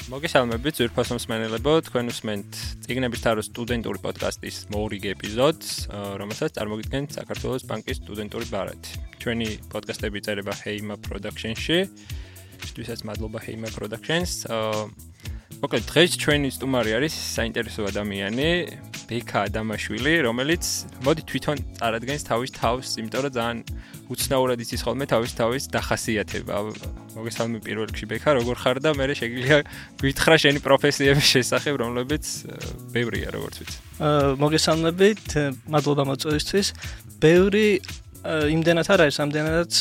მოგესალმებით ძვირფასო მსმენელებო, თქვენ უსმენთ წიგნების თაროს სტუდენტური პოდკასტის მორიგ ეპიზოდს, რომელსაც წარმოგიდგენთ საქართველოს ბანკის სტუდენტური ბარათი. ჩვენი პოდკასტები წერება Heima Production-ში. Შტვისაც მადლობა Heima Productions. მოკლედ დღეს ჩვენი სტუმარი არის საინტერესო ადამიანი, ბექა ადამაშვილი, რომელიც მოდი თვითონ წარადგენს თავის თავს, იმიტომ რომ ძალიან უცნაურად იცის ხოლმე თავის დახასიათება. მოგესალმები პირველ რიგში ბექა, როგორ ხარ და მე შეგვიძლია გითხრა შენი პროფესიების შესახებ, რომლებიც ბევრია, როგორც ვიცი. მოგესალმებით, მადლობა მოწვევისთვის. ბევრი იმდენად არ არის, ამდენადაც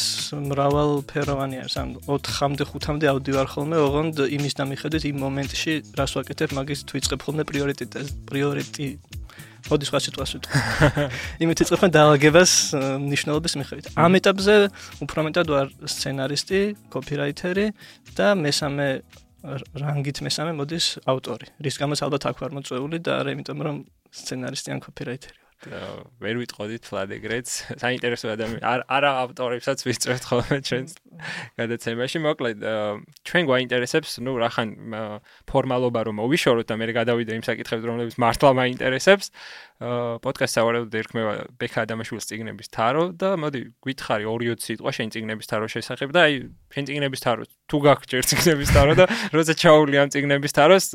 მრავალფეროვანი არის. ან 4-მდე 5-მდე ავდი ვარ ხოლმე, ოღონდ იმის დამიხედვით იმ მომენტში რას ვაკეთებ, მაგის ვიწყებ ხოლმე პრიორიტეტი. მოდი სხვა სიტყვას ვიტყვი. იმით ვიწყებ დაალაგებას მნიშვნელობის მიხედვით. ამ ეტაპზე უფრო მეტად ვარ სცენარისტი, კოპირაიტერი და მესამე რანგით მესამე მოდის ავტორი. რის გამოც ალბათ აქ ვარ მოწვეული და არა იმიტომ რომ სცენარისტი ან კოპირაიტერი. ვერ ვიტყოდით ფლად ეგრეც საინტერესო ადამიანი არა ავტორებსაც ვისწრებთ ხოლმე ჩვენს გადაცემაში მოკლედ ჩვენ გვაინტერესებს ნუ რახან ფორმალობა რომ მოვიშოროთ და მე გადავიდე იმ საკითხებზე რომლებიც მართლა მაინტერესებს პოდკასტს სავარაუდოდ ერქმევა ბექა ადამიანის წიგნების თარო და მოდი გითხარი 2-20 სიტყვა შენ წიგნების თაროს შესახებ და აი შენ წიგნების თარო თუ გაგჭირ წიგნების თარო და როცა ჩაული ამ წიგნების თაროს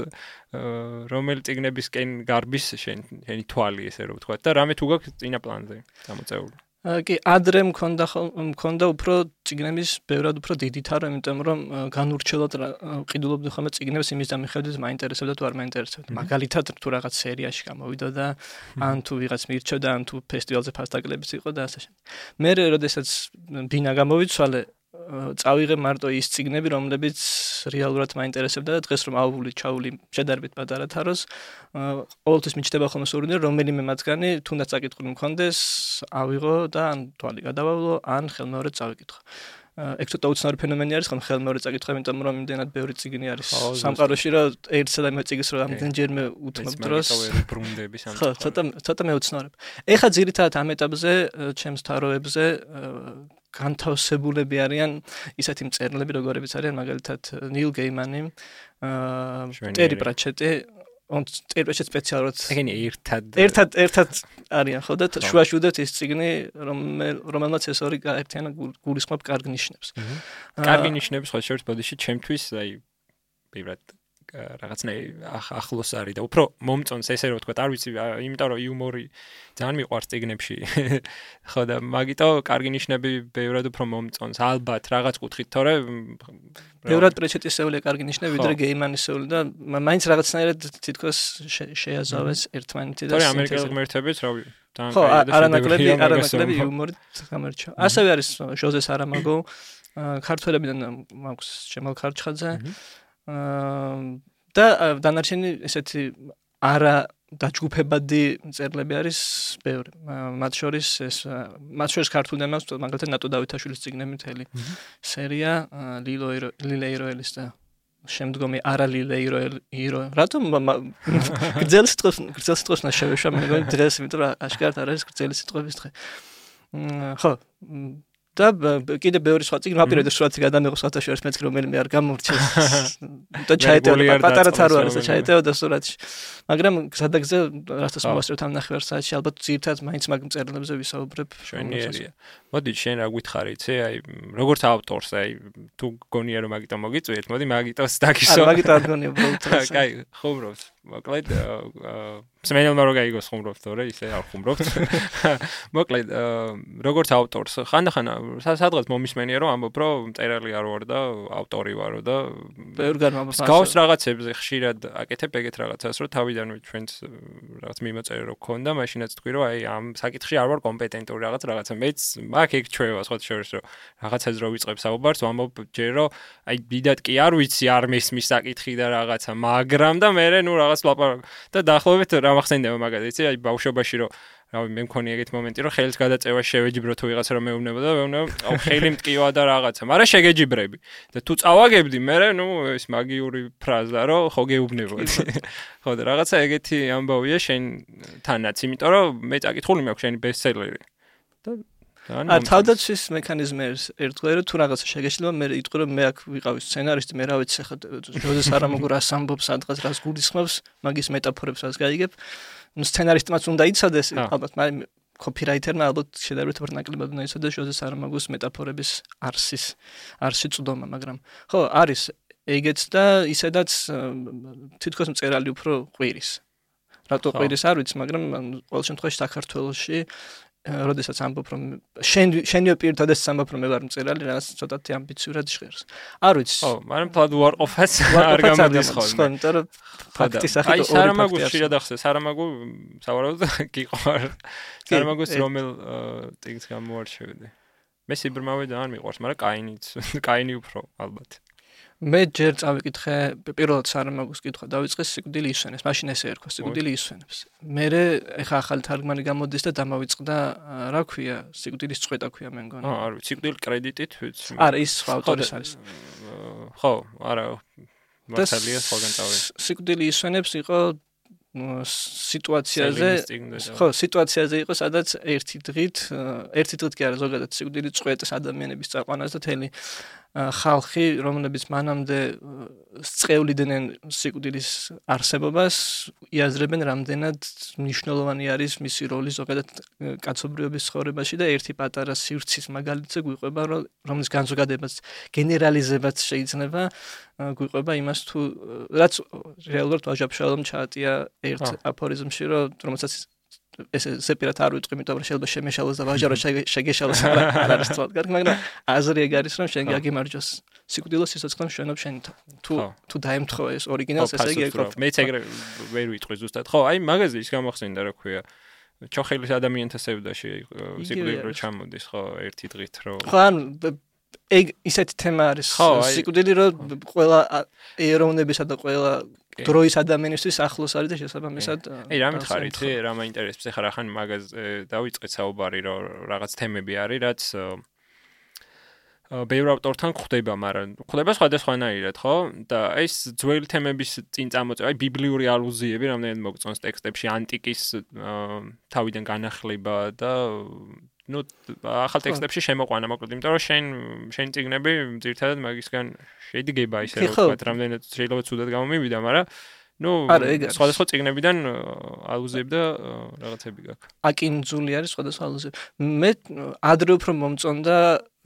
რომელი წიგნებისკენ გარბის შენი თვალი ესე რომ ვთქვა და რამე თუ გაქვს წინა პლანზე გამოწეული. კი, ადრე მქონდა უფრო წიგნების ბევრად უფრო დიდი თარო, იმიტომ რომ განურჩევლად ყიდულობდი ხოლმე წიგნებს იმის დამიხედვით მაინტერესებდა თუ არ მაინტერესებდა. მაგალითად თუ რაღაც სერიაში გამოვიდა და ან თუ ვიღაც მირჩევდა, ან თუ ფესტივალზე ფასტაკლებიც იყო და ასე შემდეგ. მე როდესაც ბინა გამოვიცვალე წავიღე მარტო ის წიგნები, რომლებიც რეალურად მაინტერესებდა და დღეს რომ ჩაული შედარებით პატარა თაროს, ყოველთვის მიჩნდება ხოლმე სურვილი, რომელიმე მათგანი თუნდაც წაკითხული მქონდეს, ავიღო და ან თვალი გადავავლო, ან ხელმეორედ წავიკითხო. ეგ ცოტა უცნაური ფენომენი არის, ხომ ხელმეორედ წაკითხო, იმიტომ რომ იმდენად ბევრი წიგნი არის სამყაროში, რომ ერთსა და იმავე წიგნს რომ ამდენჯერმე უთმობ დროს. ხო, ცოტა მეუცნაურებ. ეხლა ძირითადად ამ ეტაპზე, ჩემს თაროებზე განთავსებულები არიან ისეთი მწერლები, როგორებიც არიან მაგალითად ნილ გეიმანი, ტერი პრაჩეტი, ტერი პრაჩეტი სპეციალურად ეგენი ერთად არიან ხო და შუაში უდევთ ის წიგნი, რომელმაც ეს ორი გაერთიანა გულისხმობ კარგ ნიშნებს. კარგი ნიშნები სხვა შორის ბოდიში ჩემთვის აი ბევრად რაღაცნაირი ახლოს არის და უფრო მომწონს ესე რომ ვთქვა, არ ვიცი, იმიტომ რომ იუმორი ძალიან მიყვარს წიგნებში. ხო და მაგიტო კარგი ნიშნები ბევრად უფრო მომწონს. ალბათ რაღაც კუთხით, თორე ბევრად პრეჩეტისეული კარგი ნიშნები ვიდრე გეიმანისეული და მაინც რაღაცნაირად თითქოს შეაზავეს ერთმანეთი და თორე ამერიკელ ღმერთებიც რავი ხო, არანაკლები იუმორით გამერჩა. ასევე არის ჟოზე სარამაგო, ქართველებიდან მაქვს ჯემალ ქარჩხაძე და დანარჩენი ესეთი არა დაჯგუფებადი მწერლები არის ბევრი. მათ შორის ქართულიდან მაქვს მაგალითად ნატო დავითაშვილის წიგნები მთელი სერია, ლილე იროელის და შემდგომი არა ლილე იროელი. რატომ გრძელ სიტყვებს ნაშევეშვა მე მგონი დღეს, იმიტომ რომ აშკარად არ არის გრძელი სიტყვების დღე. ხო და კიდე ბევრი სხვა წიგნი მაპირებდა სურათი გადამეღო სხვათა შორის მეც რომელიმე არ გამორჩეს და ჩაეტევა პატარა თარო არის და ჩაეტევა სურათში მაგრამ გზადაგზე რასაც მოვასწრებთ ამ ნახევარ საათში ალბათ ძირითადად მაინც მაგ მწერლებზე ვისაუბრებ შვენიერია. მოდი შენ რა გვითხარი იცი აი როგორც ავტორს აი თუ გონია რომ მაგიტო მოგიწვიეთ მოდი მაგიტოს დაგისო მაგიტო არ გონია უბრალოდ კაი ხუმრობთ მოკლედ მსმენელმა რო გაიგოს ხუმრობთ თორე ისე არ ხუმრობთ მოკლედ როგორც ავტორს ხანდახან სადღაც მომისმენია რომ ამბობ რომ მწერალი არ ვარ და ავტორი ვარო და ბევრ განმაბოს გავს რაღაცებზე ხშირად აკეთებ ეგეთ რაღაცას რომ თავიდანვე ჩვენს რაღაც მიმოწერე რო გქონდა მაშინაც თქვი რომ აი ამ საკითხში არ ვარ კომპეტენტური რაღაცა მეც აქ ეგ ჩვევა სხვა შორის რომ რაღაცას რო ვიწყებ საუბარს ვამბობ ჯერ რომ აი დიდად კი არ ვიცი არ მესმის საკითხი და რაღაცა მაგრამ და მე ნუ რაღაც ლაპარაკ და დაახლოებით რა მახსენდება მაგალითად იცი აი ბავშვობაში რომ რავი მე მქონი ეგეთ მომენტი რომ ხელის გადაწევა შევეჯიბრო თუ ვიღაცა რომ მეუბნებოდა აუ ხელი მტკივა და რაღაცა მაგრამ შეგეჯიბრები და თუ წავაგებდი მე ნუ ეს მაგიური ფრაზა რომ ხო გეუბნებოდი ხო და რაღაცა ეგეთი ამბავია შენ თანაც იმიტომ რომ მე წაკითხული მაქვს შენი ბესტსელერი და არ თავდაცვის მექანიზმი ერთგვარი რომ თუ რაღაცა შეგეშლება მე იტყვი რომ მე აქ ვიყავი სცენარისტი მე რა ვიცი ხა ჟოზე სარამოგო რას ამბობს სადღაც რას გულისხმობს მაგის მეტაფორებს რას გაიგებ ნუ სცენარისტმაც უნდა იცოდეს ალბათ მაგრამ copywriter-მა ალბათ შედარებით ნაკლებად უნდა იცოდეს ჟოზე სარამოგოს მეტაფორების არსი წვდომა მაგრამ ხო არის ეგეც და ისედაც თითქოს მწერალი უფრო ყვირის რატო ყვირის არ ვიცი მაგრამ ყოველ შემთხვევაში საქართველოში როდესაც ამბობ რომ შენიო პირთადაც ამბობ რომ მე ვარ მწერალი რაღაც ცოტათი ამბიციურად ჟღერს არ ვიცი ხო მაგრამ თვად უარყოფას არ გამოდის ხოლმე იმიტომ რომ ფაქტის სახით აი სარამაგოს შეიძლება ახსენე სარამაგო სავარაუდოდ გიყვარ სარამაგოს რომელ ტექსტს გამოარჩევდი მე სიბრმავე და არ მიყვარს მაგრამ კაინი უფრო ალბათ მე ჯერ წავიკითხე პირველად სარამაგოს კითხვა დავიწყე სიკვდილი ისვენებს მაშინ ესე ერქვა სიკვდილი ისვენებს მე ეხა ახალი თარგმანი გამოდის და დამავიწყდა რა ქვია სიკვდილის წვეტა ქვია მე მგონი არ ვიცი სიკვდილი კრედიტით ვიცი არა ის სხვა ავტორის არის ხო არა მართალია სხვაგან წავედი სიკვდილი ისვენებს იყო სიტუაციაზე ხო სიტუაციაზე იყო სადაც ერთი დღით კი არა ზოგადად სიკვდილის წვეტს ადამიანების წაყვანას და თელი ხალხი რომლებიც მანამდე სწევლიდნენ სიკვდილის არსებობას იაზრებენ რამდენად მნიშვნელოვანი არის მისი როლი ზოგადად კაცობრიობის ცხოვრებაში და ერთი პატარა სივრცის მაგალითზე გვიყვება რომლის განზოგადებაც გენერალიზებაც შეიძლება გვიყვება იმას თუ რაც რეალურად ვაჟა-ფშაველამ ჩაატია ერთ აფორიზმში რომელსაც ეს სეპირად არ ვიტყვი, იმიტომ რომ შეიძლება შემეშალოს და ვაჟარო შეგეშალოს არ არის თვალ კარგი, მაგრამ აზრი ეგ არის რომ შენ გაგიმარჯოს. სიკვდილო სიცოცხლე მშვენობ შენ თუ დაემთხო ეს ორიგინალს ესე იგი ეკროფ. მეც ეგრე ვერ ვიტყვი ზუსტად. ხო, აი მაგაზე ის გამახსენდა რა ქვია. ჩოხელის ადამიანთა სევდაში სიკვდილი რო ჩამოდის, ხო, ერთი დღით რო. ხო, ანუ ეგ ისეთი თემა არის. სიკვდილი რო ყველა ეროვნებისა და ყველა დროის ადამიანისთვის ახლოს არის და შესაბამისად აი რა მითხარი იცი რა მაინტერესებს ეხლა რახან მაგაზე დავიწყეთ საუბარი რომ რაღაც თემები არის რაც ბევრ ავტორთან ხდება მაგრამ ხდება სხვადასხვანაირად ხო და ეს ძველი თემების წინ წამოწევა აი ბიბლიური ალუზიები რამდენად მოგწონს ტექსტებში ანტიკის თავიდან განახლება და ну ახალ ტექსტებში შემოყვანა მოკლედ იმიტომ რომ შენ წიგნები ძირთადად მაგისგან შედგება ისე რომ ვთქვათ რამდენად შეიძლება ცუდად გამომივიდა მაგრამ ну სხვადასხვა წიგნებიდან ალუზიები და რაღაცები გაქვს აკინძული არის სხვადასხვა ალუზიები მე ადრე უფრო მომწონდა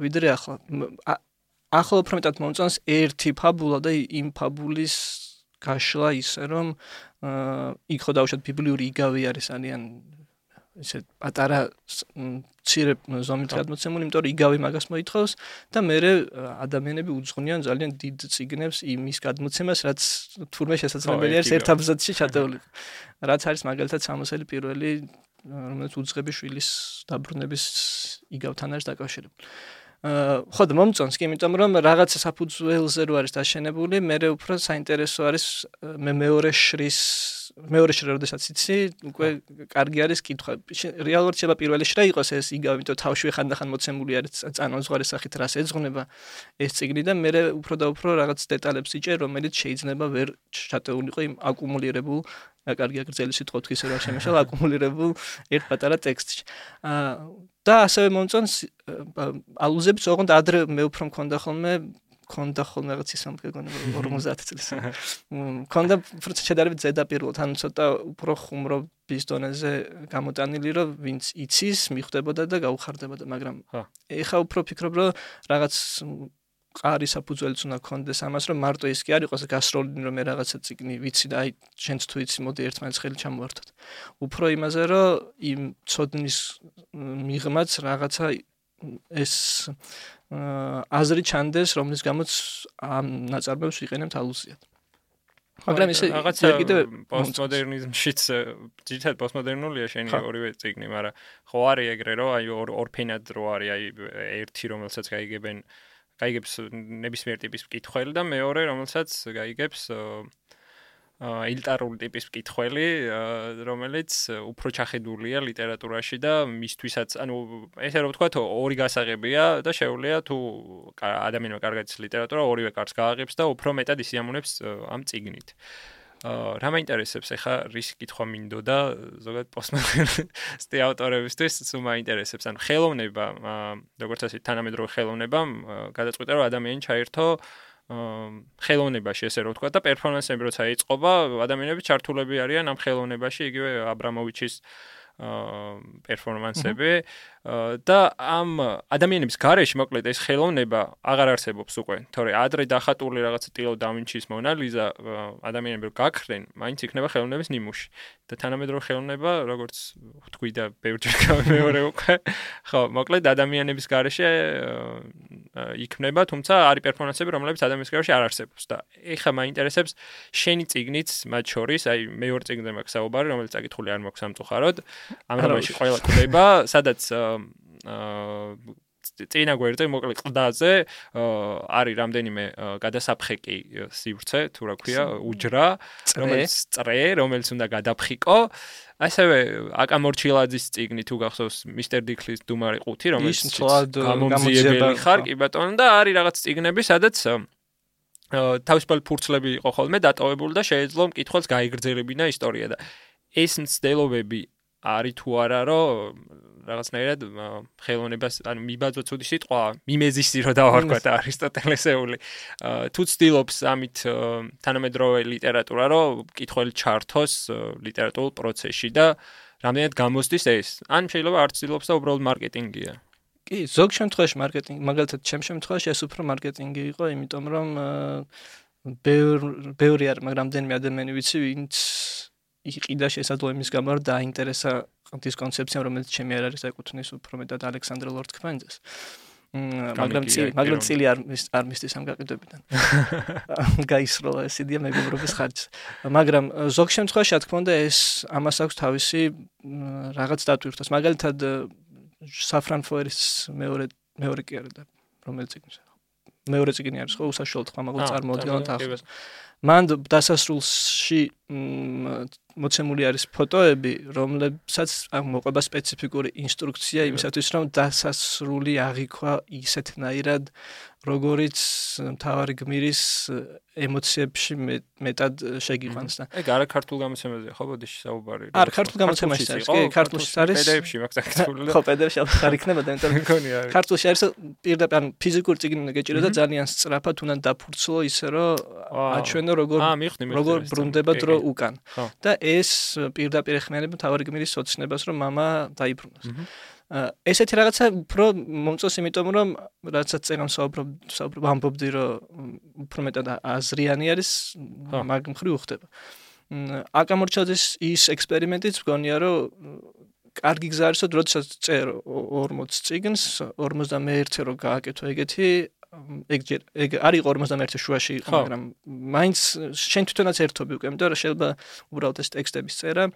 ვიდრე ახლა უფრო მეტად მომწონს ერთი ფაბულა და იმ ფაბულის გაშლა ისე რომ იქ ხო დავუშვათ ბიბლიური იგავი არის ძალიან ისე პატარა ცირე ზომით გადმოცემული, იმიტომ რომ იგავი მაგას მოითხოვს და მე ადამიანები უძღვნიან ძალიან დიდ წიგნებს იმის გადმოცემას, რაც თურმე შესაძლებელი არის ერთ აბზაცში ჩატეული. რაც არის მაგალითად სამოსელი პირველი, რომელიც უძღები შვილის დაბრუნების იგავთან არის დაკავშირებული. ხო და მომწონს კი, იმიტომ რომ რაღაცა საფუძველზე რო არის დაშენებული, მე უფრო საინტერესო არის მე მეორე შრის როდესაც იცი, უკვე კარგი არის კითხვა. რეალურად შეიძლება პირველი შრა იყოს ეს იგავი, იმიტომ თავშივე ხანდახან მოცემული არის წანაზღვარი სახით რას ეძღვნება ეს წიგნი და მე უფრო და უფრო რაღაც დეტალებს იჭერ, რომელიც შეიძლება ვერ ჩატეულიყო იმ აკუმულირებულ კარგი აგრძელი სიტყვა თქვი ისე რა შემეშალა აკუმულირებულ ერთ პატარა ტექსტში. და ასევე მომწონს ალუზიებიც ოღონდ ადრე მე უფრო მქონდა ხოლმე რაღაც ისე მგონი 50 წლის. მქონდა შედარებით ზედაპირულად, ანუ ცოტა უფრო ხუმრობის დონეზე გამოტანილი, რომ ვინც იცის, მიხვდებოდა და გაუხარდებოდა, მაგრამ ეხა უფრო ფიქრობ, რომ რაღაც ყარი საფუძველიც უნდა გქონდეს ამას, რომ მარტო ის კი არ იყოს გასროლინი, რომ მე რაღაცა წიგნი ვიცი და აი შენც თუ იცი, მოდი ერთმანეთს ხელი ჩამოვართოთ. უფრო იმაზე, რომ იმ ცოდნის მიღმაც რაღაცა ეს აზრი ჩანდეს, რომლის გამოც ამ ნაწარმოებს ვიყენებთ ალუზიად. მაგრამ ესე რაღაცა პოსტმოდერნიზმშიც ძირითადად პოსტმოდერნულია შენი ორივე წიგნი, მაგრამ ხო არის ეგრე, რომ აი ორფენად რო არის, აი ერთი რომელსაც გაიგებს ნებისმიერ ტიპის მკითხველი და მეორე რომელსაც გაიგებს ელიტარული ტიპის მკითხველი, რომელიც უფრო ჩახედულია ლიტერატურაში და მისთვისაც, ანუ ესე რომ ვთქვათ, ორი გასაღებია და შეუძლია თუ ადამიანმა კარგად იცის ლიტერატურა, ორივე კარგს გააღებს და უფრო მეტად ისიამოვნებს ამ წიგნით. რა მაინტერესებს ახლა რის კითხვა მინდოდა ზოგადად პოსტმოდერნისტი ავტორებისთვის სულ მაინტერესებს ანუ ხელოვნება როგორც ასე თანამედროვე ხელოვნებამ გადაწყვიტა რომ ადამიანი ჩაერთო ხელოვნებაში ესე რომ ვთქვა და პერფორმანსები როცა იწყობა ადამიანები ჩართულები არიან ამ ხელოვნებაში იგივე აბრამოვიჩის პერფორმანსები და ამ ადამიანების გარეშე მოკლედ ეს ხელოვნება აღარ არსებობს უკვე თორე ადრე დახატული რაღაცა ტილო დავინჩის მონალიზა ადამიანები რომ გაქრენ მაინც იქნება ხელოვნების ნიმუში და თანამედროვე ხელოვნება როგორც ვთქვი და ბევრჯერ გამეორე უკვე ხო მოკლედ ადამიანების გარეშე იქნება თუმცა არის პერფორმანსები რომლებიც ადამიანების გარეშე არ არსებობს და ეხლა მაინტერესებს შენი წიგნიც მათ შორის აი მეორე წიგნზე მაქვს საუბარი რომელიც წაკითხული არ მაქვს სამწუხაროდ ამ რომელში ყველა კვდება სადაც წინა გვერდზე მოკლედ ყდაზე არის რამდენიმე გადასაფხეკი სივრცე თუ რა ქვია უჯრა რომელიც წრე რომელიც უნდა გადაფხიკო ასევე აკა მორჩილაძის წიგნი თუ გახსოვს მისტერ დიქლის დუმარი ყუთი რომელიც გამომძიებელი ხარ კი ბატონო და არის რაღაც წიგნები სადაც თავისუფალი ფურცლები იყო ხოლმე დატოვებული და შეეძლო მკითხველს გაიგრძელებინა ისტორია და ეს მცდელობები არის თუ არა რომ რაღაცნაირად ხელოვნებას ანუ მიბაძვა ცუდი სიტყვა მიმეზისი რო დავარქვა და არისტოტელესეული თუ ცდილობს ამით თანამედროვე ლიტერატურა რომ მკითხველი ჩართოს ლიტერატურულ პროცესში და რამდენად გამოსდის ეს ან შეიძლება არ ცდილობს და უბრალოდ მარკეტინგია კი ზოგ შემთხვევაში მარკეტინგი მაგალითად ჩემ შემთხვევაში ეს უფრო მარკეტინგი იყო იმიტომ რომ ბევრი არის მაგრამ რამდენიმე ადამიანი ვიცი ვინც იყიდა შესაძლოა იმის გამო რომ დაინტერესა ის კონცეფცია რომელიც ჩემი არ არის ეკუთვნის უფრო მეტად ალექსანდრე ლორდ-ქვენძეს მაგრამ წილი არ მისდის ამ გაყიდვებიდან გაისროლა ეს იდეა მეგობრობის ხარჯზე მაგრამ ზოგ შემთხვევაში რა თქმა უნდა ეს ამას აქვს თავისი რაღაც დატვირთვას მაგალითად საფრანფოერის მეორე კი არა და რომელიც წიგნი მეორე წიგნი არის ხო უსაშუალოდ ხმამაღლა წარმოადგენთ ახლა მან დასასრულში მოცემული არის ფოტოები, რომლებსაც მოყვება სპეციფიკური ინსტრუქცია იმისათვის, რომ დასასრული აღიქვა ისეთნაირად, როგორიც მთავარი გმირის ემოციებში მეტად შეგიყვანს და ეგ არა ქართულ გამოცემაზე ხო ბოდიში საუბარი არა ქართულ გამოცემაში არის კი ქართულში არის PDF-ში მაქვს აქტიური ხო PDF-ში არ იქნება და იმიტომ ქართულში არის პირდაპირ ანუ ფიზიკური წიგნი უნდა გეჭირო და ძალიან სწრაფად უნდა დაფურცლო ისე რომ აჩვენო როგორ ბრუნდება დრო უკან და ეს პირდაპირ ეხმიანება მთავარი გმირის ოცნებას რომ მამა დაიბრუნოს ესეთი რაღაცა უფრო მომწონს იმიტომ რომ რასაც წერან საუბრობ ამბობდი რომ უფრო მეტად აზრიანი არის მაგ მხრივ უხდება აკა მორჩილაძის ის ექსპერიმენტიც მგონია რომ კარგი გზა არის როდესაც წერ 40 წიგნს 51-ე რო გააკეთო ეგეთი ეგ არის 51 შუაში იყო მაგრამ მაინც შენ თვითონაც ერთობი უკვე იმიტომ რომ შეიძლება უბრალოდ ეს ტექსტების წერა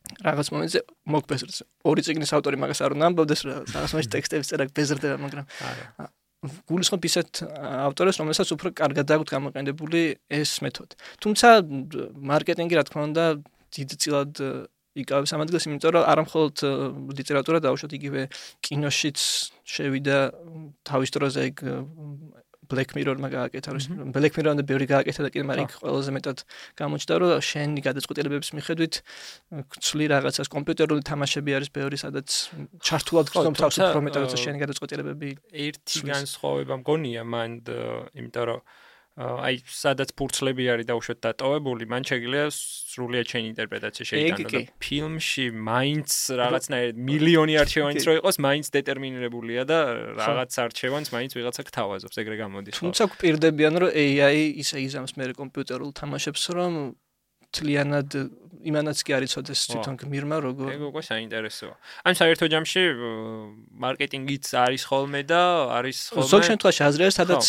რაღაც მომენტზე მოგბეზრდეს ორი წიგნის ავტორი მაგას არ უნდა ამბობდეს რაღაც მომენტში ტექსტების წერა ბეზრდება მაგრამ გულისხმობ ისეთ ავტორებს რომელსაც უფრო კარგად აქვს გამოყენებული ეს მეთოდი თუმცა მარკეტინგი რა თქმა უნდა დიდწილად იკავებს ამ ადგილს იმიტომ რომ არა მხოლოდ ლიტერატურა დაუშვათ იგივე კინოშიც შევიდა თავის დროზე ეგ Black Mirror-მა გააკეთა რომ Black Mirror-ამდე ბევრი გააკეთა და კიდე მაგრამ იქ ყველაზე მეტად გამოჩნდა რომ შენი გადაწყვეტილებების მიხედვით გცვლი რაღაცას კომპიუტერული თამაშები არის ბევრი სადაც ჩართულად გწნობ თავს უფრო მეტად როცა შენი გადაწყვეტილებები ერთი განსხვავება მგონია მან იმიტომ რომ აი სადაც ფურცლები არის დაუშვათ დატოვებული მან შეგიძლია სრულიად შენი ინტერპრეტაცია შეიტანო და ფილმში მაინც რაღაცნაირად მილიონი არჩევანიც რო იყოს მაინც დეტერმინირებულია და რაღაც არჩევანს მაინც ვიღაცა გთავაზობს ეგრე გამოდის თუმცა გვპირდებიან რომ AI ისე იზამს მე კომპიუტერულ თამაშებს რომ თლიანად იმანაც კი არ იცოდეს თვითონ გმირმა როგორ ეგ უკვე საინტერესოა. ან საერთო ჯამში მარკეტინგიც არის ხოლმე და არის ხოლმე ზოგ შემთხვევაში აზრი არის, სადაც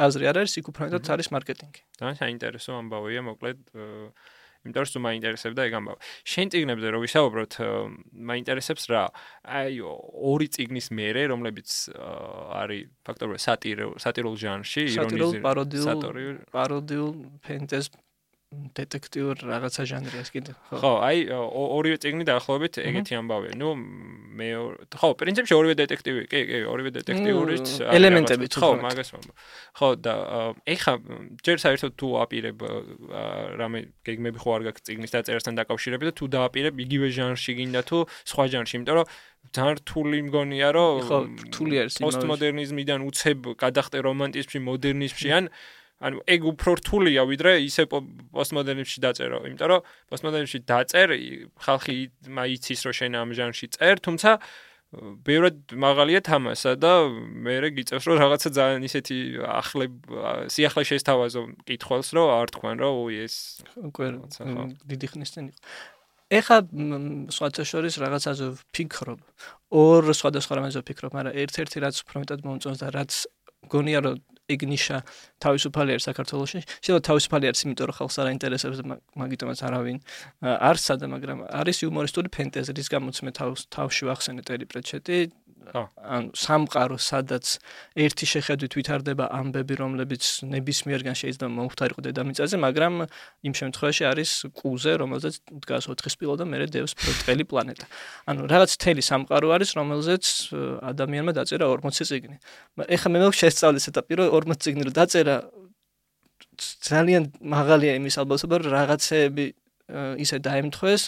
აზრი არ არის, იქ უფრო მეტად არის მარკეტინგი. და საინტერესო ამბავია, მოკლედ იმიტომ რომ მაინტერესებდა ეგ ამბავი. შენ წიგნებზე რო ვისაუბროთ, მაინტერესებს რა. აი ორი წიგნის მერე, რომლებიც არის ფაქტობრივად სატირულ ჟანრში, ირონიზირებული, პაროდიულ, ფენტეზ დეტექტიურ რაღაცა ჟანრი ეს კიდე. ხო, აი ორივე წიგნი დაახლოებით ეგეთი ამბავია. ნუ მე ხო, პრინციპში ორივე დეტექტივი, კი, ორივე დეტექტიურიც ელემენტები თუ ხო, მაგას ვამბობ. ხო, და ეხა ჯერ საერთოდ თუ აპირებ რამე გეგმები ხო არ გაქვს წიგნის დაწერასთან დაკავშირებით და თუ დააპირებ იგივე ჟანრში გინდა თუ სხვა ჟანრში, იმიტომ რომ ძალიან რთული მგონია რომ ხო, რთული არის პოსტმოდერნიზმიდან უცებ გადახტე რომანტიზმში, მოდერნიზმში ანუ ეგ უფრო რთულია ვიდრე ისე პოსტმოდერნიზმში დაწერო, იმიტომ რომ პოსტმოდერნიზმში დაწერ, ხალხი იცის რომ შენ ამ ჟანრში წერ, თუმცა ბევრად მაღალია თამასა და მე გიწევს რომ რაღაცა ძალიან ისეთი სიახლე შესთავაზო კითხველს რომ არ თქვენ რომ ეს უკვე დიდი ხნის წინ იყო. ეხა სხვათა შორის რაღაცაზე ვფიქრობ, ორ სხვადასხვა რამეზე ვფიქრობ, მაგრამ ერთ-ერთი რაც უფრო მეტად მომწონს და რაც გონია რომ ეგ ნიშა თავისუფალი არის საქართველოში. შეიძლება თავისუფალი არის, იმიტომ რომ ხალხს არ აინტერესებს და მაგიტომაც არავინ არ სადა, მაგრამ არის იუმორისტული ფენტეზი, რის გამოც მე თავში ვახსენე ტერი პრეჩეტი. ანუ სამყარო, სადაც ერთი შეხედვით ვითარდება ამბები, რომლებიც ნებისმიერგან შეიძლება მომხდარიყო დედამიწაზე, მაგრამ იმ შემთხვევაში არის კუზე, რომელზეც დგას 4 სპილო და მერე დევს ბრტყელი პლანეტა. ანუ რაღაც თელი სამყარო არის, რომელზეც ადამიანმა დაწერა 40 წიგნი. ეხლა მე მაქვს შესწავლის ეტაპი, რომ 40 წიგნი რო დაწერა, ძალიან მაღალია იმის ალბათობა, რომ რაღაცეები ისე დაემთხვეს,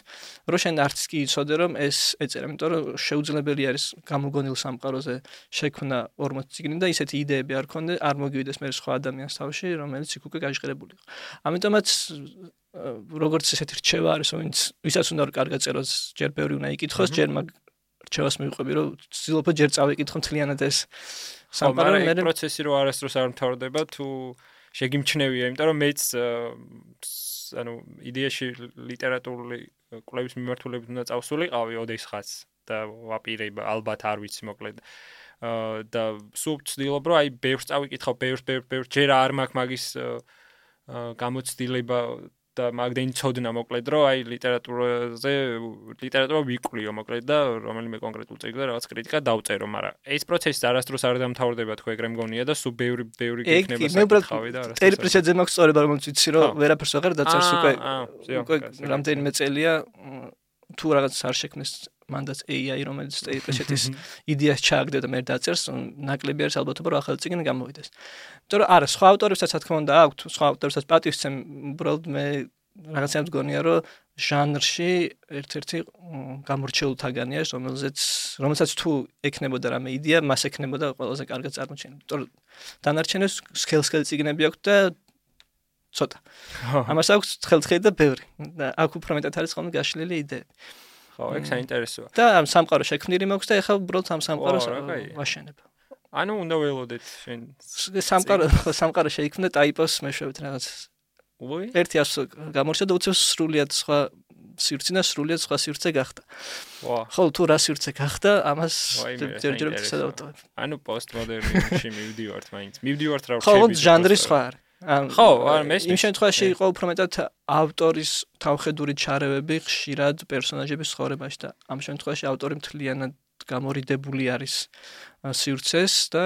რომ შენ არც კი იცოდე რომ ეს ეწერა, იმიტომ რომ შეუძლებელი არის გამოგონილ სამყაროზე შექმნა 40 წიგნი და ისეთი იდეები არ ქონდა, არ მოგივიდეს მე სხვა ადამიანს თავში, რომელიც იქ უკვე გაჟღერებული იყო. ამიტომაც როგორც ესეთი რჩევა არის, ვისაც უნდა რომ კარგად წეროს, ჯერ ბევრი უნდა იკითხოს, ჯერ მაგ რჩევას მივყვები, რომ ვცდილობ ჯერ წავიკითხო მთლიანად ეს სამყარო, მაგრამ ეს პროცესი რო არასდროს არ მთავრდება, თუ შეგიმჩნევია, იმიტომ რომ მეც ანუ იდეაში ლიტერატურული კვლევის მიმართულებით უნდა წავსულიყავი ოდესღაც და ვაპირებ ალბათ არ ვიცი მოკლედ და სულ ვცდილობ რომ აი ბევრს წავიკითხავ, ბევრს ჯერ არ მაქვს მაგის გამოცდილება და მაგდენი ცოდნა მოკლედ რომ აი ლიტერატურა ვიკვლიო მოკლედ და რომელიმე კონკრეტულ წიგნზე რაღაც კრიტიკა დავწერო, მაგრამ ეს პროცესი არასდროს არ დამთავრდება თქო ეგრე მგონია და სულ ბევრი გიქნება საკითხავი და არასდროს. ტერი პრეჩეტზე მაქვს სწორება, რომელიც ვიცი რომ ვერაფერს აღარ დაწერს უკვე რამდენიმე წელია თუ რაღაც არ შექმნეს მანდაც AI რომელიც ტერი პრეჩეტის იდეას ჩააგდე და მე დაწერს, ნაკლები არის ალბათობა რომ ახალი წიგნი გამოვიდეს. იმიტომ რომ არა, სხვა ავტორებსაც რა თქმა უნდა აქვთ, სხვა ავტორებსაც პატივს ვცემ, უბრალოდ მე რაღაცა მგონია რომ ჟანრში ერთ-ერთი გამორჩეულთაგანი არის, რომელსაც თუ ექნებოდა რამე იდეა, მას ექნებოდა ყველაზე კარგად წარმოჩენილი. იმიტომ რომ დანარჩენებს სქელ-სქელი წიგნები აქვს და ცოტა. ამას აქვს თხელ-თხელი და ბევრი. და აქ უფრო მეტად არის ხოლმე გაშლილი იდეები. ხო, ეგ საინტერესოა. და ამ სამყარო შექმნილი მაქვს და ეხლა უბრალოდ ამ სამყაროს ვაშენებ. ანუ უნდა ველოდეთ შენ სამყარო შეიქმნა ტაიპოს მეშვეობით რაღაც. ერთი გამორჩა და უცებ სრულიად სხვა სივრცე და სრულიად სხვა სივრცე გახდა. ხო, თუ რა სივრცე გახდა, ამას ჯერჯერობით სადავტოვებ. ანუ პოსტმოდერნიზმში მივდივართ მაინც. მივდივართ რა ხო, ჟანრი სხვა არის. ხო, არ მესმის. იმ შემთხვევაში იყო უფრო მეტად ავტორის თავხედური ჩარევები ხშირად პერსონაჟების ცხოვრებაში და ამ შემთხვევაში ავტორი მთლიანად გამორიდებული არის სივრცეს და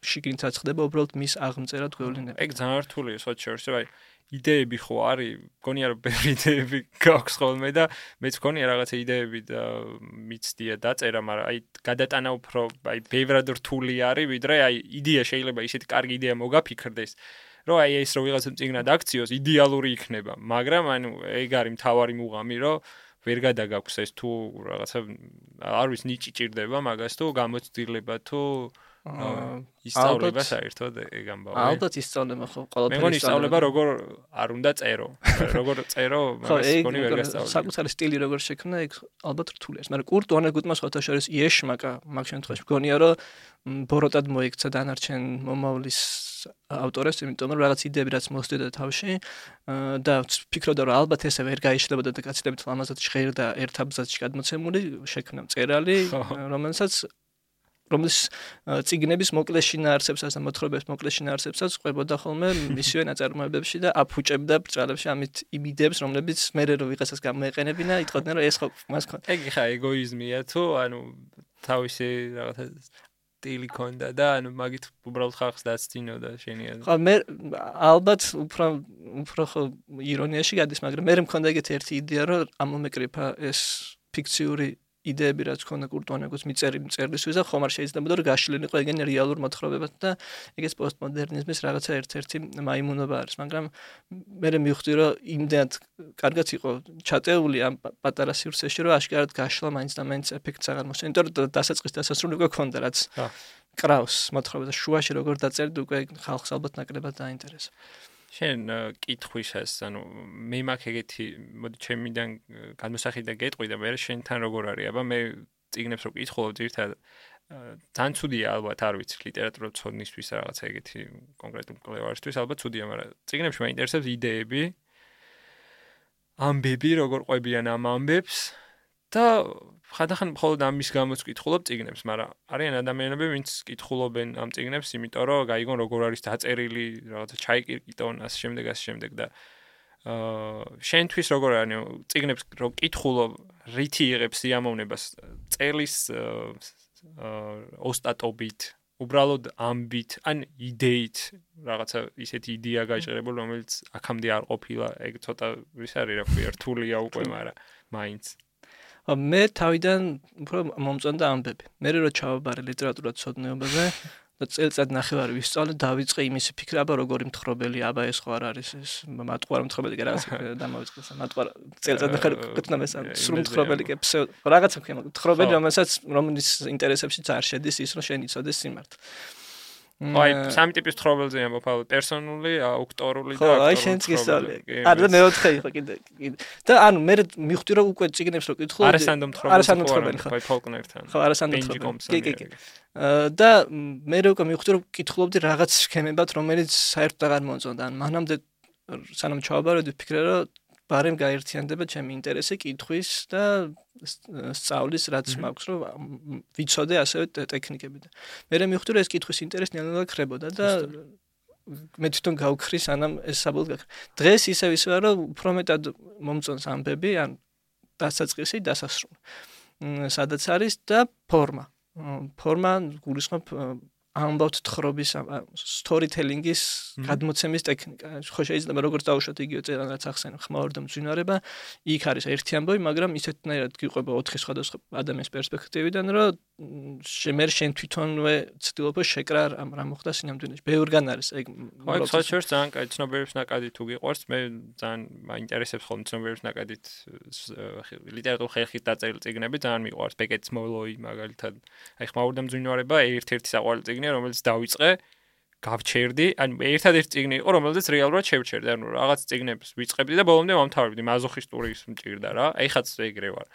შიგნითაც ხდება უბრალოდ მის აღმწერად გვევლინება. ეგ ძალიან რთულია სხვა შორის, აი იდეები ხო არის, გონია რომ ბევრი იდეები გაქვს ხოლმე და მეც გონია რაღაცა იდეები და მიცდია დაწერა, მაგრამ აი გადატანა უფრო აი ბევრად რთული არის, ვიდრე აი იდეა შეიძლება ისეთი კარგი იდეა მოგაფიქრდეს, რომ აი ეს რო ვიღაცა წიგნად აქციოს, იდეალური იქნება, მაგრამ ანუ ეგ არის მთავარი მუღამი, რომ ვერ გადაგაქვს ეს თუ რაღაცა არ ვიცი ნიჭი ჭირდება მაგას თუ გამოცდილება თუ ისწავლება საერთოდ ეგ ამბავი. ალბათ ისწავლება ხო, ყველაფერი. მე მგონი ისწავლება როგორ არ უნდა წერო. როგორ წერო, მაგას მგონი ვერ გასწავლე. საკუთარი სტილი როგორ შექმნა, ეგ ალბათ რთული არის. მაგრამ კურტ ვანეგუტმა სხვათა შორის იეშმაკა მაგ შემთხვევაში მგონია რომ ბოროტად მოიქცა დანარჩენ მომავლის ავტორებს, იმიტომ რომ რაღაც იდეები რაც მოსდიდა თავში და ფიქრობდა რომ ალბათ ესე ვერ გაიშლებოდა და გაცილებით ლამაზად ჟღერდა ერთ აბზაცში გადმოცემული, შექმნა მწერალი, რომლის წიგნების მოკლე შინაარსებსაც და მოთხრობების მოკლე შინაარსებსაც ყვებოდა ხოლმე მისივე ნაწარმოებებში და აფუჭებდა ბრჭყალებში ამით იმ იდეებს, რომლებიც მერე რო ვიღაცას გამოეყენებინა, იტყოდნენ რომ ეს ხო მას ქონდა. ეგ ხა ეგოიზმია თუ ანუ თავისი რაღაცა სტილი ქონდა და ანუ მაგით უბრალოდ ხალხს დაცდინოდა შენია. ხო მე ალბათ უფრო ხო ირონიაში გადის, მაგრამ მე მქონდა ეგეთი ერთი იდეა, რომ ამომეკრიფა ეს ფიქციური იდეები რაც ქონდა კურტუანეგოს მიწერილი წერლისთვის და ხომ არ შეიძლება რომ გაშლილიყო ეგენი რეალურ მოთხრობებად და ეგეც პოსტმოდერნიზმის რაღაცა ერთ-ერთი მაიმუნობა არის, მაგრამ მე მივხვდი რომ იმდენად კარგად იყო ჩატეული ამ პატარა სივრცეში, რომ აშკარად გაშლა მაინც და მაინც ეფექტს აღარ მოსწონდა, იმიტომ რომ დასაწყის დასასრული უკვე ქონდა რაც კრავს მოთხრობა და შუაში როგორ დაწერდი უკვე ხალხს ალბათ ნაკლებად დაინტერესა. შენ კითხვისას, ანუ მე მაქვს ეგეთი, მოდი ჩემიდან განმოსახი და გეტყვი და მე შენთან როგორ არის, აბა მე წიგნებს რო კითხულობ ძირთადად ძალიან ცუდია ალბათ, არ ვიცი, ლიტერატურა ცოდნისთვის რაღაცა ეგეთი კონკრეტულ კვლევარისთვის ალბათ ცუდია, მაგრამ წიგნებში მაინტერესებს იდეები, ამბები, როგორ ყვებიან ამ ამბებს და ხანდახან მხოლოდ ამის გამოც კითხულობ წიგნებს, მაგრამ არიან ადამიანები, ვინც კითხულობენ ამ წიგნებს, იმიტომ რომ გაიგონ როგორ არის დაწერილი, რაღაცა ჩაიკირკიტონ, ასე შემდეგ და შენთვის როგორ არის წიგნებს რო კითხულობ, რითი იღებს სიამოვნებას წელის ოსტატობით, უბრალოდ ამბით, ან იდეით, რაღაცა ისეთი იდეა გაიჭრებული, რომელიც აქამდე არ ყოფილა, ეგ ცოტა ვის არის, რა ქვია, რთულია უკვე, მაგრამ მაინც მე თავიდან უფრო მომწონდა ამბები. მე რო ჩავაბარე ლიტერატურათმცოდნეობაზე და წელიწად ნახევარი ვისწავლე, დავიწყე იმის ფიქრა, აბა როგორი მთხრობელი, აბა ეს ხო არ არის ეს მატყუარი მთხრობელი კი რაღაცა დამავიწყეს. მატყუარი წელიწად ნახევარი გქნა მე სრულ მთხრობელი კი რაღაცა ქვია, მთხრობელი რომელიც ინტერესებშიც არ შედის ის, რომ შენ იცოდეს სიმართლე. აი, სამი ტიპის თხრობელზე ამბობ, პერსონული, აუქტორული და აი შენც გისწავლე. არა მეოთხე იყო კიდე. და ანუ მე მივხვდი რომ უკვე წიგნებს რო კითხულობ, არასანდო მთხრობელი ხო, ფოლკნერთან. ხო, არასანდო მთხრობელი. კი. და მე უკვე მივხვდი რომ კითხულობდი რაღაც სქემებად, რომელიც საერთოდ აღარ მომწონდა. ან მანამდე სანამ ჩავაბარებდი, ვფიქრე რომ ბარემ გაერთიანდება ჩემი ინტერესი კითხვის და სწავლის რაც მაქვს, რომ ვიცოდე ასევე ტექნიკები და მე მივხვდი რომ ეს კითხვის ინტერესი ნელ-ნელა ქრებოდა და მე თვითონ გავქრი სანამ ეს საბოლოოდ გაქრა. დღეს ისევ ვარ რომ უფრო მეტად მომწონს ამბები, ან დასაწყისი, დასასრული. სადაც არის და ფორმა. ფორმა გულისხმობ ამბავთ თხრობის storytelling-ის გადმოცემის ტექნიკა. ხო შეიძლება როგორც დავუშვათ იგივე წერან რაც ახსენე, ხმაური და მძვინვარება, იქ არის ერთი ამბავი, მაგრამ ისეთნაირად გიყვება 4 სხვადასხვა ადამიანის პერსპექტივიდან, რომ მე შენ თვითონვე ცდილობ შეკრა რა მოხდა სინამდვილეში. ბევრგან არის ეგ. ხო, საერთოდ ძალიან კაი ცნობიერების ნაკადი თუ გიყვარს, მე ძალიან მაინტერესებს ხოლმე ცნობიერების ნაკადით ლიტერატურულ ხერხით დაწერილი წიგნები, ძალიან მიყვარს. ბეკეტის მოლოი მაგალითად. აი ხმაური და მძვინვარება ერთ-ერთი საყვარელი წიგნია, რომელიც დავიწყე, გავჩერდი, ან ერთადერთი წიგნი იყო, რომელზეც რეალურად შევჩერდი, ანუ რაღაც წიგნებს ვიწყებდი და ბოლომდე ვამთავრებდი, მაზოხისტური ის მჭირდა რა. აი ხაც ეგრე ვარ.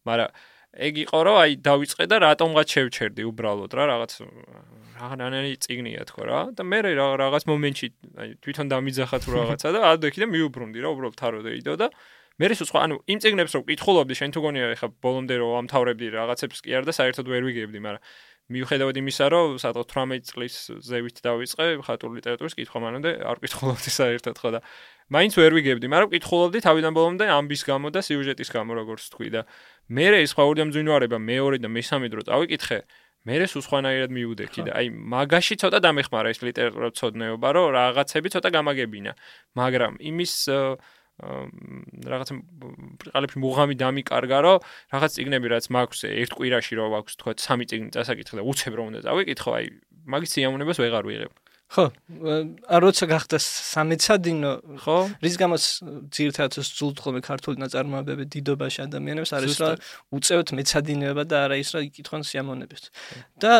მაგრამ ეგ იყო რომ აი დავიწყე და რატომღაც შევჩერდი უბრალოდ რა რაღაც რაღაცნაირი წიგნია თქო რა და მე რაღაც მომენტში აი თვითონ დამიძახა თუ რაღაცა და ადექი და მიუბრუნდი რა უბრალოდ თაროდეიდო და მე ის სხვა ანუ იმ წიგნებს რომ კითხულობდი შენ თუ გონია ეხა ბოლომდე რომ ამთავრებდი რაღაცებს კი არა და საერთოდ ვერ ვიგებდი მაგრამ მიუხედავად იმისა რომ სადღაც 18 წლის ზევით დავიწყე ხატური ლიტერატურის კითხვა მანამდე არ კითხულობდი საერთოდ ხო და მაინც ვერ ვიგებდი მაგრამ კითხულობდი თავიდან ბოლომდე ამბის გამო და სიუჟეტის გამო როგორც თქვი და მე ის ხაური და მძვინვარება მეორე და მესამე დრო წავიკითხე მე ეს უსხვანაირად მიუდექი და აი მაგაში ცოტა დამეხმარა ეს ლიტერატურა ცოდნეობა რომ რაღაცები ცოტა გამაგებინა მაგრამ იმის რაღაც ყალებში მუღამი დამიკარგა რომ რაღაც წიგნები რაც მაქვს ერთ კვირაში რომ აქვს თქვა 3 წიგნი წასაკითხე და უცებ რომ უნდა წავიკითხო აი მაგის სიამოვნებას ვეღარ ვიღებ ხო როცა გახდა სამეცადინო ხო რის გამოც ძირითადად სძულთ ხოლმე ქართული ნაწარმოებები დიდობაში ადამიანებს არის რა უწევთ მეცადინეობა და არა ის რა იკითხონ სიამოვნებებს და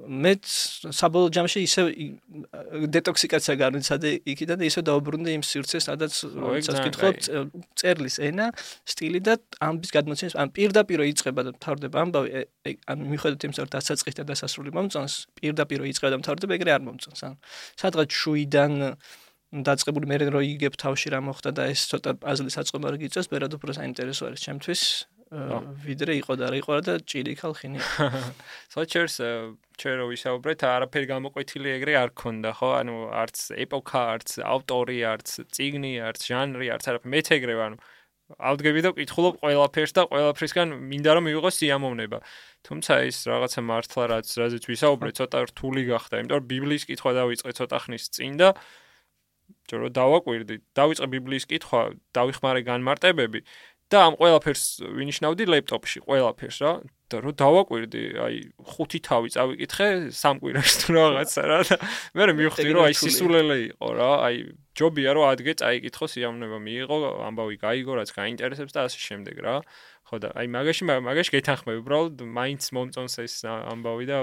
მე საბოლოო ჯამში ისე დეტოქსიკაცია განვიცადე იქიდან და ისე დაუბრუნდი იმ სივრცეს სადაც როდესაც კითხულობ წერლის ენა სტილი და ამბის გადმოცემის ან პირდაპირ იწყება და მთავრდება ამბავი ან მიხედავთ იმას რომ დასაწყისი და დასასრული მომწონს პირდაპირ იწყება და მთავრდება ეგრე არ მომწონს სადღაც შუიდან დაწყებული მე რო იგებ თავში რა მოხდა და ეს ცოტა პაზლის აწყობა რო გიწევს, ბერად უფრო საინტერესო არის ჩემთვის, ვიდრე იყო და რა იყო და ჭირი ხალხინი. სოჩერს ჩვენ რო ვისაუბრეთ, არაფერი გამოკვეთილი ეგრე არ ქონდა, ხო? ანუ არც ეპოქა, არც ავტორი, არც წიგნი, არც ჟანრი, არც არაფერი. მეც ეგრე ვარ, ანუ ავდგები და ვკითხულობ ყველაფერს და ყველაფრისგან მინდა რომ მივიღო სიამოვნება. თუმცა ის რაღაცა მართლა რაზეც ვისაუბრე, ცოტა რთული გახდა, იმიტომ რომ ბიბლიის კითხვა დავიწყე ცოტა ხნის წინ და ჯერო დავაკვირდი, დავიწყე ბიბლიის კითხვა, დავიხმარე განმარტებები და ამ ყველაფერს ვინიშნავდი ლეპტოპში, ყველაფერს რა. და რო დავაკვირდი, აი 5 თავი წავიკითხე 3 კვირაში თუ რაღაცა რა და მე მივხვდი რომ აი სისულელე იყო რა, აი ჯობია რომ ადგე წაიკითხო სიამოვნება მიიღო, ამბავი გაიგო, რაც გაინტერესებს და ასე შემდეგ რა. ხო და აი მაგაში გეთანხმები, უბრალოდ მაინც მომწონს ეს ამბავი და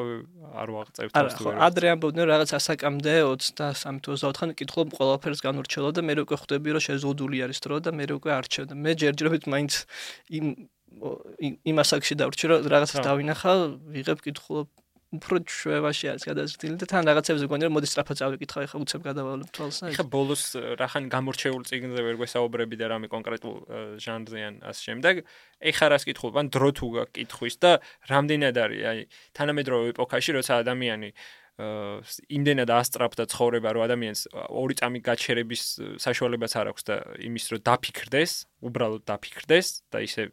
არ ვაღწევ თავს თუ არა. ადრე ამბობდნენ რაღაც ასაკამდე 23-24 კითხულობ ყველაფერს განურჩევლო და მე უკვე ხვდები რომ შეზღუდული არის დრო და მე უკვე არჩევ და მე ჯერჯერობით მაინც იმ ასაკში დავრჩი რომ რაღაცას დავინახავ, ვიღებ კითხულობ უფრო ჩვევაში არის გადაზრდილი და თან რაღაცებზე გქონდა რომ მოდი სწრაფად წავიკითხავ, ეხლა უცებ გადავალებ თვალს. ეხლა ბოლოს რახან გამორჩეულ წიგნზე ვერ გვესაუბრები და რამე კონკრეტულ ჟანრზე ან ასე შემდეგ. ეხლა რას კითხულობ, ან დრო თუ გაქვს კითხვის და რამდენად არის აი თანამედროვე ეპოქაში, როცა ადამიანი იმდენად ასწრაფდა ცხოვრება, რომ ადამიანს ორი წამი გაჩერების საშუალებაც არ აქვს და იმის რომ დაფიქრდეს, უბრალოდ დაფიქრდეს და ისე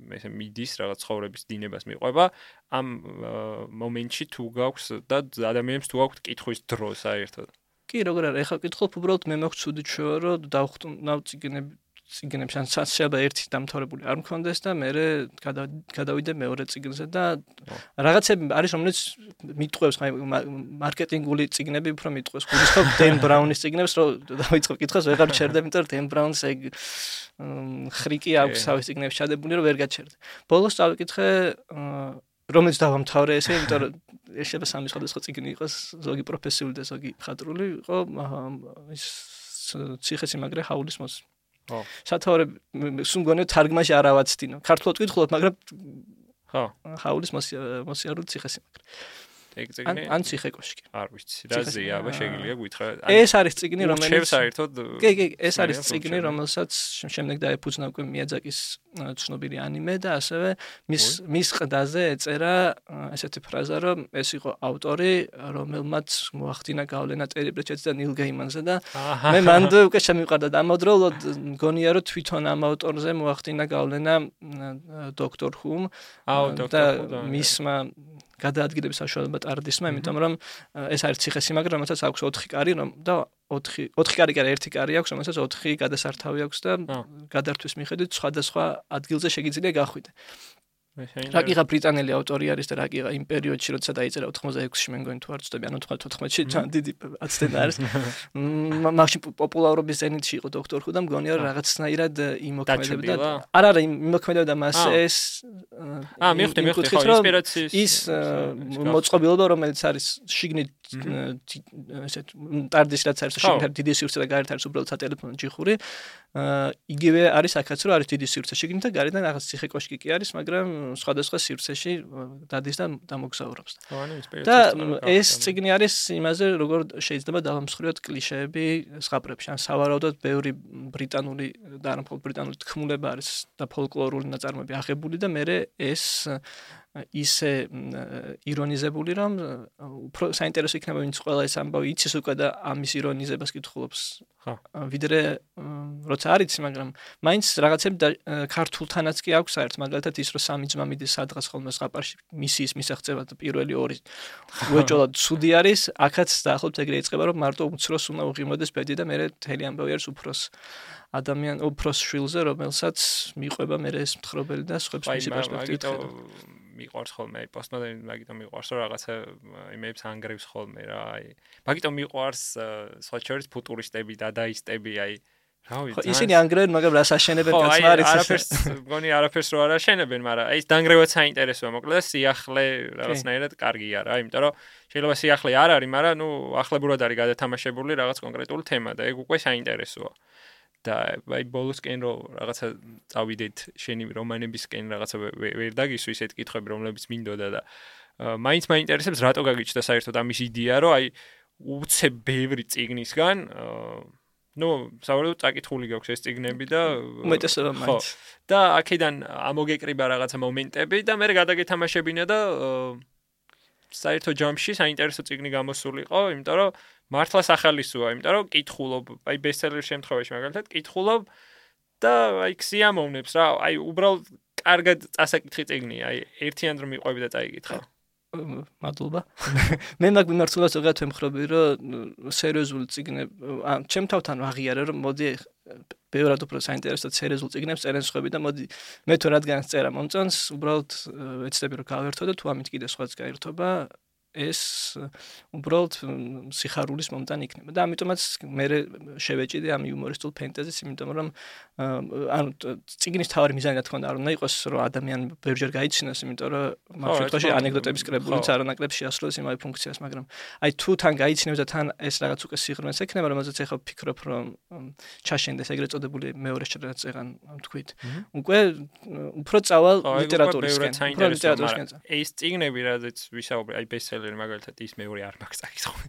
მიდის რაღაც ცხოვრების დინებას მიყვება ამ მომენტში თუ გაქვს და ადამიანებს თუ გაქვს კითხვის დრო საერთოდ. კი, როგორ არის, ეხლა კითხულობ უბრალოდ მე მაქვს ცუდი ჩვევა, რომ დავხტუნავ წიგნებს, ან შეიძლება ერთი დამთავრებული არ მქონდეს და მე გადავიდე მეორე წიგნზე და რაღაცები არის, რომელიც მიტყვევს, მარკეტინგული წიგნები უფრო მიტყვევს. გულისხმობ დენ ბრაუნის წიგნებს, რომ დავიწყებ კითხვას, ვეღარ ჩერდები, იმიტომ რომ დენ ბრაუნს ეგ ხრიკი აქვს თავის წიგნებში ჩადებული, რომ ვერ გაჩერდე. ბოლოს წავიკითხე რომელიც დავამთავრე ესე, იმიტომ რომ შეიძლება სამი სხვადასხვა წიგნი იყოს, ზოგი პროფესიული და ზოგი ხატრული, იყო ის ციხესიმაგრე ჰაულის მოსი. სათავე სულ თარგმანში არ ავაცდინო. ქართულად ვკითხულობ, მაგრამ ხო. ჰაულის მოსიარული ციხესიმაგრე. ეგ წიგნი? ან ციხე კოშკი. არ ვიცი. რაზეა, აბა შეგიძლია გითხრა. ეს არის წიგნი, რომელიც საერთოდ კი, ეს არის წიგნი, რომელსაც შემდეგ დაეფუძნა უკვე მიაძაკის ცნობილი ანიმე და ასევე მის ყდაზე ეწერა ესეთი ფრაზა, რომ ეს იყო ავტორი, რომელმაც მოახდინა გავლენა ტერი პრეჩეტს და ნილ გეიმანზე და მე მანდ უკვე შემივყარდა და ამავდროულად მგონია რომ თვითონ ამ ავტორზე მოახდინა გავლენა დოქტორ ჰუმ და მისმა გადაადგილების საშუალება ტარდისმა, იმიტომ რომ ეს არის ციხესიმაგრე, რომელსაც აქვს 4 კარი და 4 კარი კი არა, 1 კარი აქვს, რომელსაც 4 გადასართავი აქვს და გადართვის მიხედვით სხვადასხვა ადგილზე შეგიძლია გახვიდე. რაკიღა ბრიტანელი ავტორი არის და რაკიღა იმ პერიოდში, როცა დაიწერა 86-ში მე მგონი თუ არ ვცდები, ანუ 94-ში დიდი აცდენა არის. მაშინ პოპულარობის ზენიტში იყო დოქტორ ჰუ და მგონია რომ რაღაცნაირად იმოქმედებდა. არა, იმოქმედებდა მას ეს მივხვდი ხო ინსპირაციის ის მოწყობილობა, რომელიც არის შიგნით ესეთ ტარდის რაც არის შიგნით დიდი სივრცე და გარეთ არის უბრალოდ სატელეფონო ჯიხური. იგივე არის აქაც რომ არის დიდი სივრცე შიგნით და გარედან რაღაც ციხე კოშკი კი არის, მაგრამ სხვადასხვა სივრცეში დადის და დამოგზაურობს. და ეს წიგნი არის იმაზე, როგორ შეიძლება დავამსხვრიოთ კლიშეები ზღაპრებში. ან სავარაუდოდ ბევრი ბრიტანული და არა მხოლოდ ბრიტანული თქმულება არის და ფოლკლორული ნაწარმოები აღებული და მე ეს ისე ირონიზებული, რომ უფრო საინტერესო იქნება, ვინც ყველა ეს ამბავი იცის უკვე და ამის ირონიზებას კითხულობს. ვიდრე როცა არ იცი, მაგრამ მაინც რაღაცები ქართულთანაც კი აქვს საერთოდ, მაგალითად ის რომ სამი ძმა მიდის სადღაც ხოლმე ზღაპარში მისიის მისაღწევად და პირველი ორი უეჭოლად ცუდი არის, აქაც დაახლოებით ეგრე იწყება, რომ მარტო უმცროს უნდა უღიმოდეს ბედი და მე მთელი ამბავი არის უფროს შვილზე, რომელსაც მიყვება მე ეს მთხრობელი და სხვებს მისი პერსპექტივით ხედავ. მიყვარს ხოლმე პოსტმოდერნი, მაგიტომ მიყვარს რომ რაღაცა იმებს ანგრევს ხოლმე რა, აი მაგიტომ მიყვარს სხვა შორის ფუტურისტები, დადაისტები, აი რა ვიცი. ისინი ანგრევენ, მაგრამ რას აშენებენ კაცმა არის ეს. არაფერს მგონი არაფერს რო არ აშენებენ, მაგრამ აი ეს დანგრევაც საინტერესოა, მოკლედ სიახლე რაღაცნაირად კარგია რა, იმიტომ რომ შეიძლება სიახლე არ არის, მაგრამ ნუ ახლებურად არის გადათამაშებული რაღაც კონკრეტული თემა და ეგ უკვე საინტერესოა. და აი ბოლოსკენ რომ რაღაცა წავიდეთ შენი რომანებისკენ რაღაცა ვერ დაგისვი ისეთ კითხვები რომლებიც მინდოდა და მაინც მაინტერესებს რატო გაგიჩნდა საერთოდ ამის იდეა რომ აი უცებ ბევრი წიგნისგან სავარაუდოდ წაკითხული გაქვს ეს წიგნები და უმეტესობა მაინც და აქედან ამოგეკრიბა რაღაცა მომენტები და მე გადაგეთამაშებინა და საერთო ჯამში საინტერესო წიგნი გამოსულიყო, იმიტომ რომ მართლა სახალისოა, იმიტომ რომ კითხულობ, აი ბესტსელერის შემთხვევაში მაგალითად კითხულობ და აი ქსიამოვნებს რა, აი უბრალოდ კარგად წასაკითხი წიგნია, აი ერთიან რომ მიყვები და წაიკითხა. მადლობა. მე მაგ მიმართულებას ზოგადად ვემხრობი, რომ სერიოზული წიგნები, ჩემ თავთან აღიარე, რომ მოდი ბევრად უფრო საინტერესო სერიოზულ წიგნებს წერენ სხვები და მოდი მე თუ რადგან წერა მომწონს, უბრალოდ ეცდები რომ გავერთო და თუ ამით კიდე სხვაც გაერთობა, ეს უბრალოდ სიხარულის მომტანი იქნება და ამიტომაც მე შევეჭიდე ამ იუმორისტულ ფენტეზის, იმიტომ რომ ანუ წიგნის თავი მიზანი რა თქმა უნდა არ უნდა იყოს რომ ადამიანი ბევრჯერ გაიცინოს, იმიტომ რომ მაგ შემთხვევაში ანეკდოტების კრებულიც არ უნაკრებს შეასრულოს იმავე ფუნქციას, მაგრამ აი თუ თან გაიცინებს და თან ეს რაღაც უკვე სიღრმეს ექნება, რომელზეც ახლა ვფიქრობ რომ ჩაშენდეს ეგრეთ წოდებული მეორე შედეგაც ეგან თქვით. უკვე უფრო წავალ ლიტერატურისკენ. ეს წიგნები რადგან ვისაუბრე, აი ბესტსელერი მაგალითად ის მეორე არ მაქვს წაკითხული.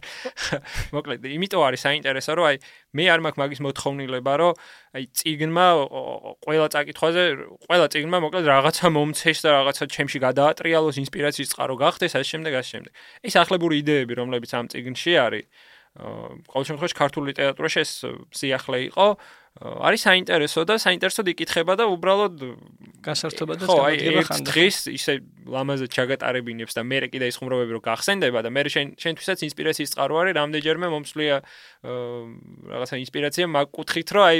მოკლედ, იმიტომ არის საინტერესო, რომ აი მე არ მაქვს მაგის მოთხოვნილება, რომ აი წიგნმა ყველა წაკითხვაზე, ყველა წიგნმა მოკლედ რაღაცა მომცეს და რაღაცა ჩემში გადაატრიალოს, ინსპირაციის წყარო გახდეს, ასე შემდეგ. ეს ახლებური იდეები, რომლებიც ამ წიგნში არის, ყოველ შემთხვევაში ქართულ ლიტერატურაში ეს სიახლე იყო, არის საინტერესო და საინტერესოდ იკითხება და უბრალოდ გასართობა და შემოდგება ხანდახან. დღეს ისე ლამაზად ჩაგატარებინებს და მე კიდე ის ხუმრობები რო გახსენდება და მე შენთვისაც ინსპირაციის წყარო არის, რამდენჯერმე მომსვლია რაღაცა ინსპირაცია მაგ კუთხით, რომ აი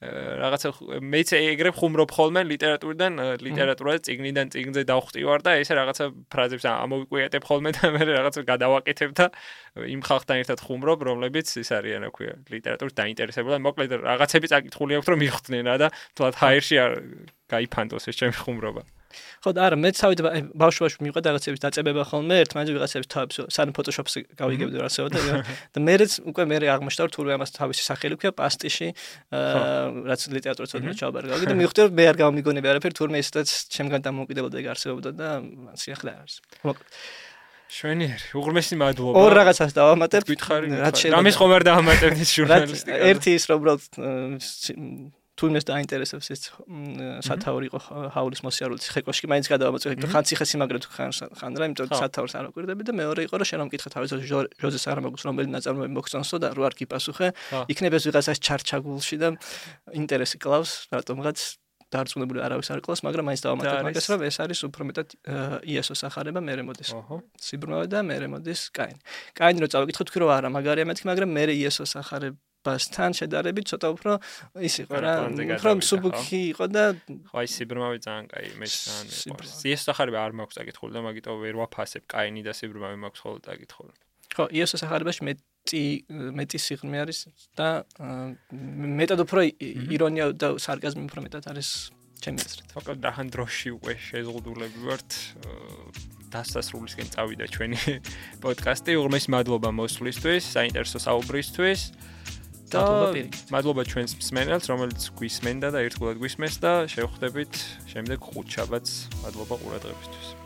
რაღაცა მეც ეგრე ხუმრობ ხოლმე ლიტერატურაზე წიგნიდან წიგნზე დავხვდივარ და ესე რაღაცა ფრაზებს ამოვიკვიატებ ხოლმე და მე რაღაცა გადავაკეთებ და იმ ხალხთან ერთად ხუმრობ, რომლებიც ის არიან, რა ქვია, ლიტერატურით დაინტერესებული. მოკლედ რაღაცები წაკითხული აქვს, რომ მიხვდნენ რა და თლათ ჰაერში არ გაიფანტოს ეს ჩემი ხუმრობა. ხო და არა, მეც თავით ბავშვობაში მიყვარდა რაღაცების დაწებება ხოლმე, ერთმანეთს ვიღაცების თავებს სანამ ფოტოშოპს გავიგებდი რასეო და მეც უკვე მე აღმოჩნდა რომ თურმე ამას თავისი სახელი ქვია პასტიში, რაც ლიტერატურის ოდნავ ჩავაბარგავდი და მივხვდი რომ მე არ გამომიგონები არაფერი, თურმე ისედაც ჩემგან დამოუკიდებლად ეგ არსებობდა და სიახლე არის. შვენიერი, უღრმესი მადლობა. ორ რაღაცას დავამატებ. რამის ხომ არ დავამატებთ ის ჟურნალისტიკა. ერთი ის რომ უბრალოდ თუნდაც დაინტერესებს ეს სათაური იყო ჰაულის მოსიარულის ხეკოში, მაინც გადავამოწევ, ხან ციხესიმაგრე თუ ხან რა, იმიტომ რომ სათაურს არ აკვირდები და მეორე იყო რომ შენ რომ მკითხე თავის ჟოზე სარამაგუს რომელი ნაწარმოები მოგწონსო და რო არ გიპასუხე, იქნება ეს ვიღაცას ჩარჩაგულში და ინტერესი კლავს, რატომღაც დარწმუნებული არავის არ ყავს, მაგრამ მაინც დავამატებ მაგას, რომ ეს არის უფრო მეტად იესოს ახარება, მერე მოდის სიბრმავე და მერე მოდის კაინი. კაინი რო წავიკითხე, თქვი რომ არა, მაგარია მეთქი, მაგრამ მერე იესოს ახარებასთან შედარებით ცოტა უფრო ის იყო რა, უფრო მსუბუქი იყო და ხო, აი სიბრმავე ძალიან კაი, მე ძალიან მიყვარს. იესოს ახარება არ მაქვს წაკითხული და მაგიტო ვერ ვაფასებ, კაინი და სიბრმავე მაქვს ხოლმე წაკითხული. ხო, იესოს ახარებაში მეტი სიღრმე არის და მეტად უფრო ირონია და სარკაზმი უფრო მეტად არის ჩემი აზრით. მოკლედ რახან დროში უკვე შეზღუდულები ვართ დასასრულისკენ წავიდა ჩვენი პოდკასტი. უღრმესი მადლობა მოსვლისთვის, საინტერესო საუბრისთვის და მადლობა ჩვენს მსმენელს, რომელიც გვისმენდა და ერთგულად გვისმენს და შევხვდებით შემდეგ 5 შაბათს. მადლობა ყურადღებისთვის.